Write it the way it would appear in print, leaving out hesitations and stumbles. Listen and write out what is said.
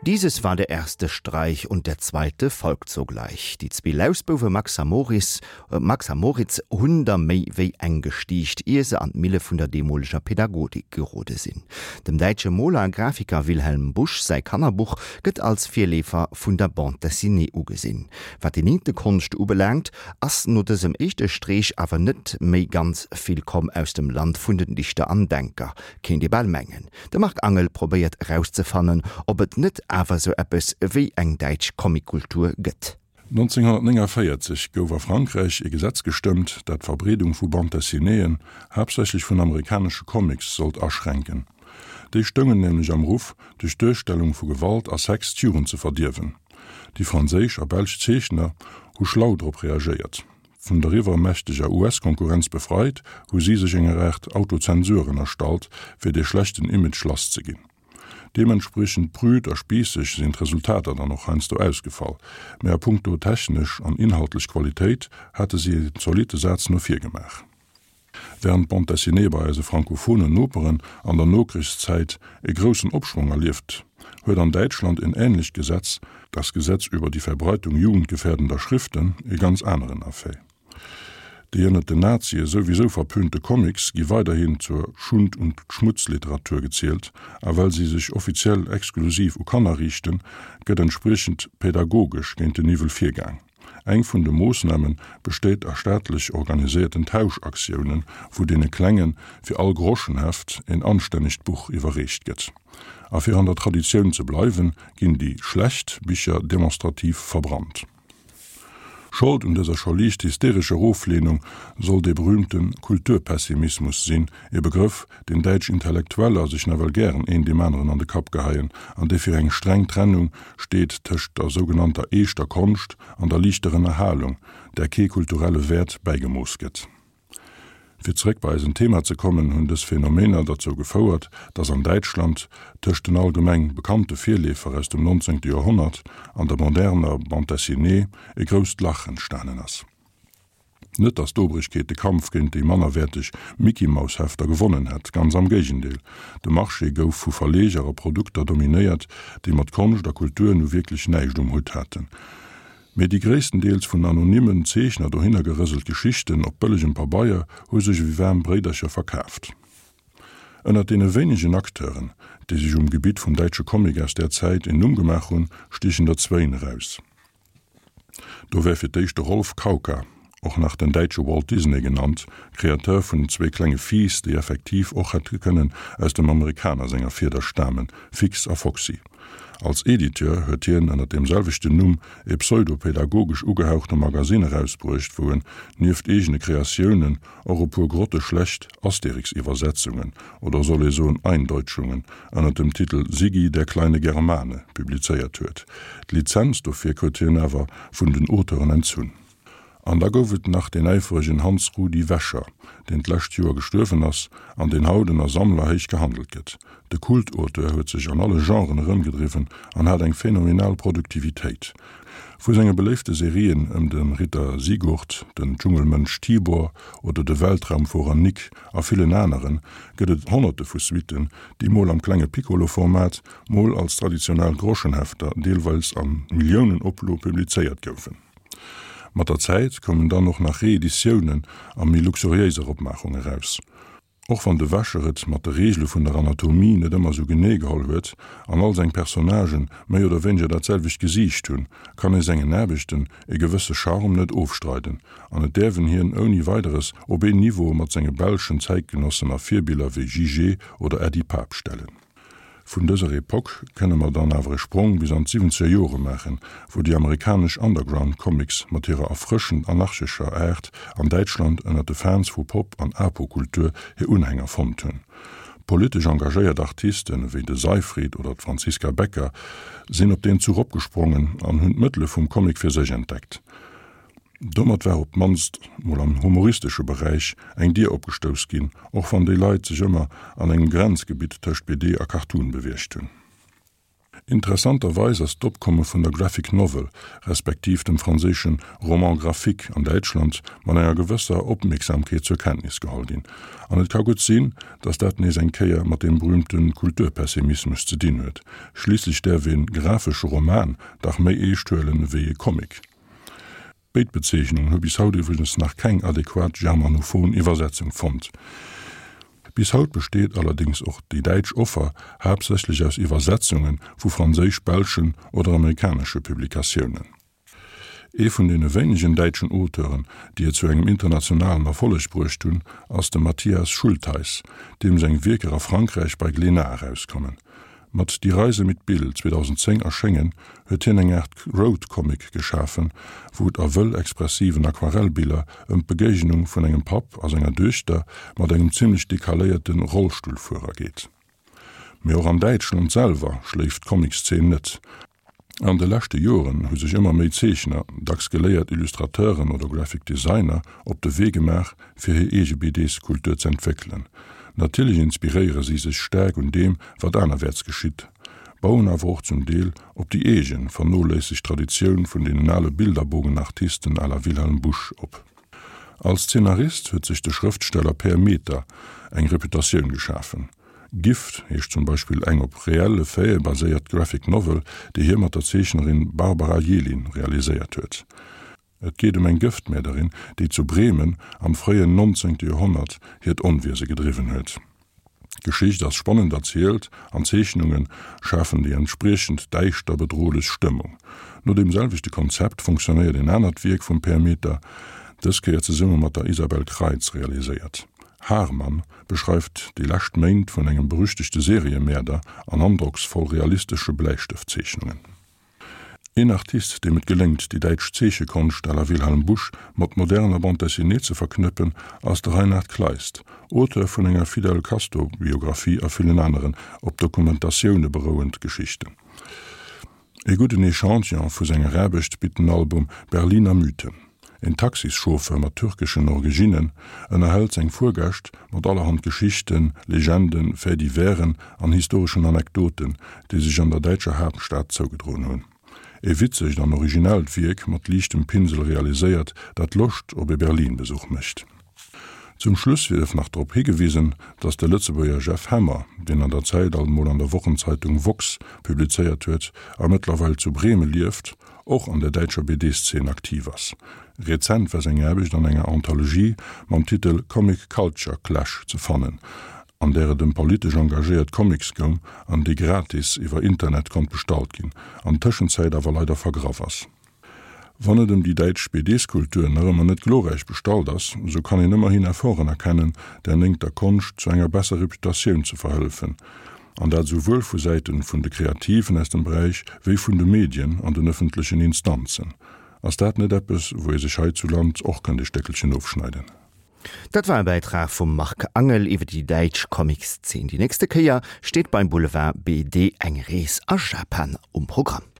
Dieses war der erste Streich und der zweite folgt sogleich. Déi zwee Lausbouwe Max a Maurice, Max a Moritz hunn der méi wéi eng gestiicht, ier se an d'Mille vun der deemoleger Pädagodik gerode sinn. Dem däitsche Moler a Grafiker Wilhelm Busch säi Kannerbuch gëtt als Virleefer vun der Bande dessinée ugesinn. Wat déi néngte Konscht ubelaangt, ass no dësem éischte Streech awer net méi ganz vill komm aus dem Land vun den Dichter an Denker, kéint ee bal mengen. De Marc Angel probéiert erauszefannen, ob et net awer sou eppes wéi eng däitsch Comickultur gëtt. 1949 gouf a Frankräich ee Gesetz gestëmmt, dat d'Verbreedung vu Bande dessinéeën, haaptsächlech vun amerikanesche Comics, sollt aschränken. Déi stoungen nämlech am Ruff, duerch d'Duerstellung vu Gewalt a Sex d'Jugend ze verdierwen. Déi franséisch a belsch Zeechner hu schlau drop reagéiert. Vun der iwwermächteger US-Konkurrenz befreit, hu si sech enger Aart Autozensur ënnerstallt, fir dee schlechten Image lass ze ginn. Deementspriechend prüd a spiisseg sinn d'Resultater dann och heiansdo ausgefall, mä a punkto technesch an inhaltlech Qualitéit hate si en zolitte Saz no vir gemaach. Wärend d'Bande dessinée bei eise frankophonen Noperen an der Nokrichszäit e groussen Opschwong erlieft huet an Däitschland en änlecht Gesetz, das Gesetz über die Verbreitung jugendgefährdender Schriften, e ganz aneren Effet. Déi ënnert den Nazie souwisou verpönte Comics gi weiderhin zur Schund und Schmutzliteratur gezielt, a well si sech offiziell exklusiv u Kanner riichten, gëtt entspriechend pädagogesch géint den Iwwel virgaang. Eng vun de Moossname besteet a staatlech organiséierten Tauschaktiounen, wou deene Klenge fir all Groschenheft een anstännegt Buch iwwerreecht gëtt. A fir an der Traditioun ze bleiwen, ginn déi schlecht Bicher demonstrativ verbrannt. Schold un dëser scho liicht hysterescher Ofleenung soll dee berühmte Kulturpessimismus sinn, e Begrëff, deen däitsch Intellektueller sech nawell gären een deem aneren an de Kapp geheien an dee fir eng streng Trennung steet tëscht der sougenannter eeschter Konscht an der liichter Ënnerhalung, där kee kulturelle Wäert bäigemooss gëtt. Fir zeréck bei eisen Thema ze kommen, hunn dës Phänomener derzou gefouert, datt an Däitschland tëscht den allgemeng bekannte Virleefer aus dem 19. Joerhonnert an der moderner Bande dessinée e grousst Lach entstanen ass. Net datt d'Obrigkeet de Kampf géint déi mannerwäerteg Mickey-Maus-Hefter gewonnen hätt, ganz am Géigendeel, de Marché gouf vu Verleger a Produkter dominéiert, déi mat Konscht a Kultur nu wierklech näischt um Hutt haten. Mee déi gréisstendeels vun anonymen Zeechner dohinner gerëselt Geschichten op bëllegem Pabeier hu sech ewéi waarm Bréidercher verkaaft. Ënnert deene wéinegen Acteuren, déi sech um Gebitt vum däitsche Comic aus där Zäit en Numm gemaach hunn, stiechen der zwéin eraus. Do wär fir d'éischt de Rolf Kauka, och nach den däitsche Walt Disney genannt, Kreateur vun den zwee klenge Fiiss, déi effektiv och hätte kënnen aus dem Amerikaner senger Fieder stamen, Fix a Foxy. Als Editeur huet hien ënner deem selwechten Numm e pseudo-pädagogesch ugehauchte Magasinn erausbruecht, wou en nieft eegene Kreatiounen och e puer grotteschlecht Asterix-Iwwersetzungen, oder soll ee soen Eindeutschungen, ënner dem Titel Siggi, der kleine Germane publizéiert huet. D'Lizenz dofir krut hien awer vun den Auteuren entzunn. An da gouf et nach deen äiferegen Hans Rudi Wäscher, deen d'lescht Joer gestuerwen ass an deen haut ënner Sammler héich gehandelt gëtt. De Kultauteur huet sech an alle Genren erëmgedriwwen an hat eng phänomenal Produktivitéit. Vu senge beléifte Serien ëm de Ritter Sigurd, den Dschungelmënsch Tibor oder de Weltraumfuerer Nick a villen aneren, gëtt et honnerte vu Suitten, déi mol am klenge Piccolo-Format, mol als traditionell Groschenhefter, deelweils a Milliounenoplo publizéiert goufen. Mat der Zäit koumen dann och nach Reeditiounen a méi luxuriéiser Opmaachung eraus. Och wann de Wäscher et mat de Reegele vun der Anatomie net ëmmer sou genee geholl huet an all seng Personnagen méi oder wéineger dat selwecht Gesiicht hunn, kann ee sengen Aarbechten e gewësse Charme net ofstreiden an et däerf en hien ouni Weideres op een Niveau mat senge belschen Zäitgenossen a Virbiller wéi Jijé oder Äddi Pap stellen. Vun dëser Epoque kënne mer dann awer e Sprong bis an d'siwwenzeger Jore maachen, wou déi amerikanesch Underground Comics mat hirer erfrëschend anarchescher Aart an Däitschland ënner de Fans vu Pop an Apo-Kultur hir Unhänger fonnt hunn. Politesch engagéiert Artisten ewéi de Seifried oder d'Franziska Becker sinn op deen Zuch opgesprongen an hunn d'Mëttele vum Comic fir sech entdeckt. Domat war op d'mannst mol am humoristesche Beräich eng Dier opgestouss ginn, och wann déi Leit sech ëmmer an engem Grenzgebitt tëscht BD a Cartoon beweegt hunn. Interessanterweis ass d'Opkomme vun der Graphic Novel, respektiv dem franséische Roman graphique an Däitschland mat enger gewësser Opmierksamkeet zur Kenntnis geholl ginn. An et ka gutt sinn, datt dat nees eng Kéier mat deem berüümte Kulturpessimismus ze dinn huet. Schliisslech däerf ee grafesche Roman dach méi eescht huelen ewéi e Comic. Béid Bezeechnungen hu bis haut iwwregens nach keng adequat germanophon Iwwersetzung fonnt. Bis haut besteet allerdéngs och déi däitsch Offer haaptsächlech aus Iwwersetzunge vu franséisch-, belschen oder amerikanesche Publikatiounen. Ee vun deene wéinegen däitschen Auteuren, déi et zu engem internationalen Erfolleg bruecht hunn, ass de Matthias Schultheiss, deem seng Wierker a Frankräich bei Glénat erauskommen. Mat Die Reise mit Bill, 2010 erschéngen, huet hien eng Aart Road-Comic geschafen, wou et a wëll expressiven Aquarellbiller ëm d'Begéignung vun engem Papp a senger Duechter mat engem zimmlech decaléierte Rollstullfuerer geet. Mee och an Däitschland selwer schléift d'Comic-Szene net. An de leschte Joren hu sech ëmmer méi Zeechner, dacks geléiert Illustrateuren oder Graphic Designer, op de Wee gemaach, fir hir eege BDs-Kultur z'entwéckelen. Natierlech inspiréiere si sech staark un deem, wat anerwäerts geschitt, bauen awer och zum Deel op déi eegen, vernoléissegt Traditioun vun deenen ale Bilderbogenartisten à la Wilhelm Busch op. Als Zeenarist huet sech de Schrëftsteller Per Meter eng Reputatioun geschafen. Gift heescht zum Beispill eng op reelle Faite baséiert Graphic Novel, déi hie mat der Zeechnerin Barbara Yelin realiséiert huet. Et geet ëm eng Gëftmäerderin, déi zu Bremen am fréien 19. Joerhonnert hiert Onwiese gedriwwen huet. D'Geschicht ass spannend erzielt an d'Zeechnunge schafen déi entspriechend däischter, bedrohlech Stëmmung. No deem selwechte Konzept funktionéiert en anert Wierk vum Per Meter, dës Kéier zesumme mat der Isabel Kreitz realiséiert. Haarmann beschreift déi lescht Méint vun engem berüchtegte Seriemäerder an androcksvoll realistesche Bläistëftzeechnungen. Een Artist, deem et geléngt, déi däitsch Zeechekonscht à la Wilhelm Busch mat moderner Bande dessinée ze verknëppen, ass de Reinhard Kleist, Auteur vun enger Fidel Castro-Biographie a villen aneren op Dokumentatioune berouend Geschichten. Ee gudden Echantillon vu senger Aarbecht bitt den Album Berliner Mythen. En Taxischauffeur mat türkeschen Originnen ënnerhält seng Fuergäscht mat allerhand Geschichten, Legenden, Faits-diversen an historeschen Anekdoten, déi sech an der däitscher Haaptstad zougedroen hunn. E witzegt an originellt Wierk mat liichtem Pinsel realiséiert, dat Loscht op e Berlin-Besuch mécht. Zum Schluss sief nach drop higewisen, datt de Lëtzebuerger Jeff Hemmer, deen an der Zäit alt mol an der Wochenzeitung woxx publizéiert huet a mëttlerweil zu Breme lieft, och an der däitscher BD-Szene aktiv ass. Rezent war seng Aarbecht an enger Anthologie mam Titel Comic Culture Clash ze fannen, an där et ëm politesch engagéiert Comics goung an déi gratis iwwer Internet konnt bestallt ginn, an Tëschenzäit awer leider vergraff ass. Wann et ëm déi däitsch BDs-Kultur nach ëmmer net glorräich bestallt ass, sou kann een ëmmerhin Efforten erkennen, der néngter Konscht zu enger besser Reputatioun ze verhëllefen, an dat esouwuel vu Säiten vun de Kreativen aus dem Beräich wéi vun de Medien an den ëffentlechen Instanzen. Ass dat net eppes, wou ee sech hei zu Land och kënnt e Stéckelchen ofschneiden? Dat war e Bäitrag vum Marc Angel iwwer déi däitsch Comics-Zeen. Déi nächste Kéier steet beim Boulevard BD eng Rees a Japan um Programm.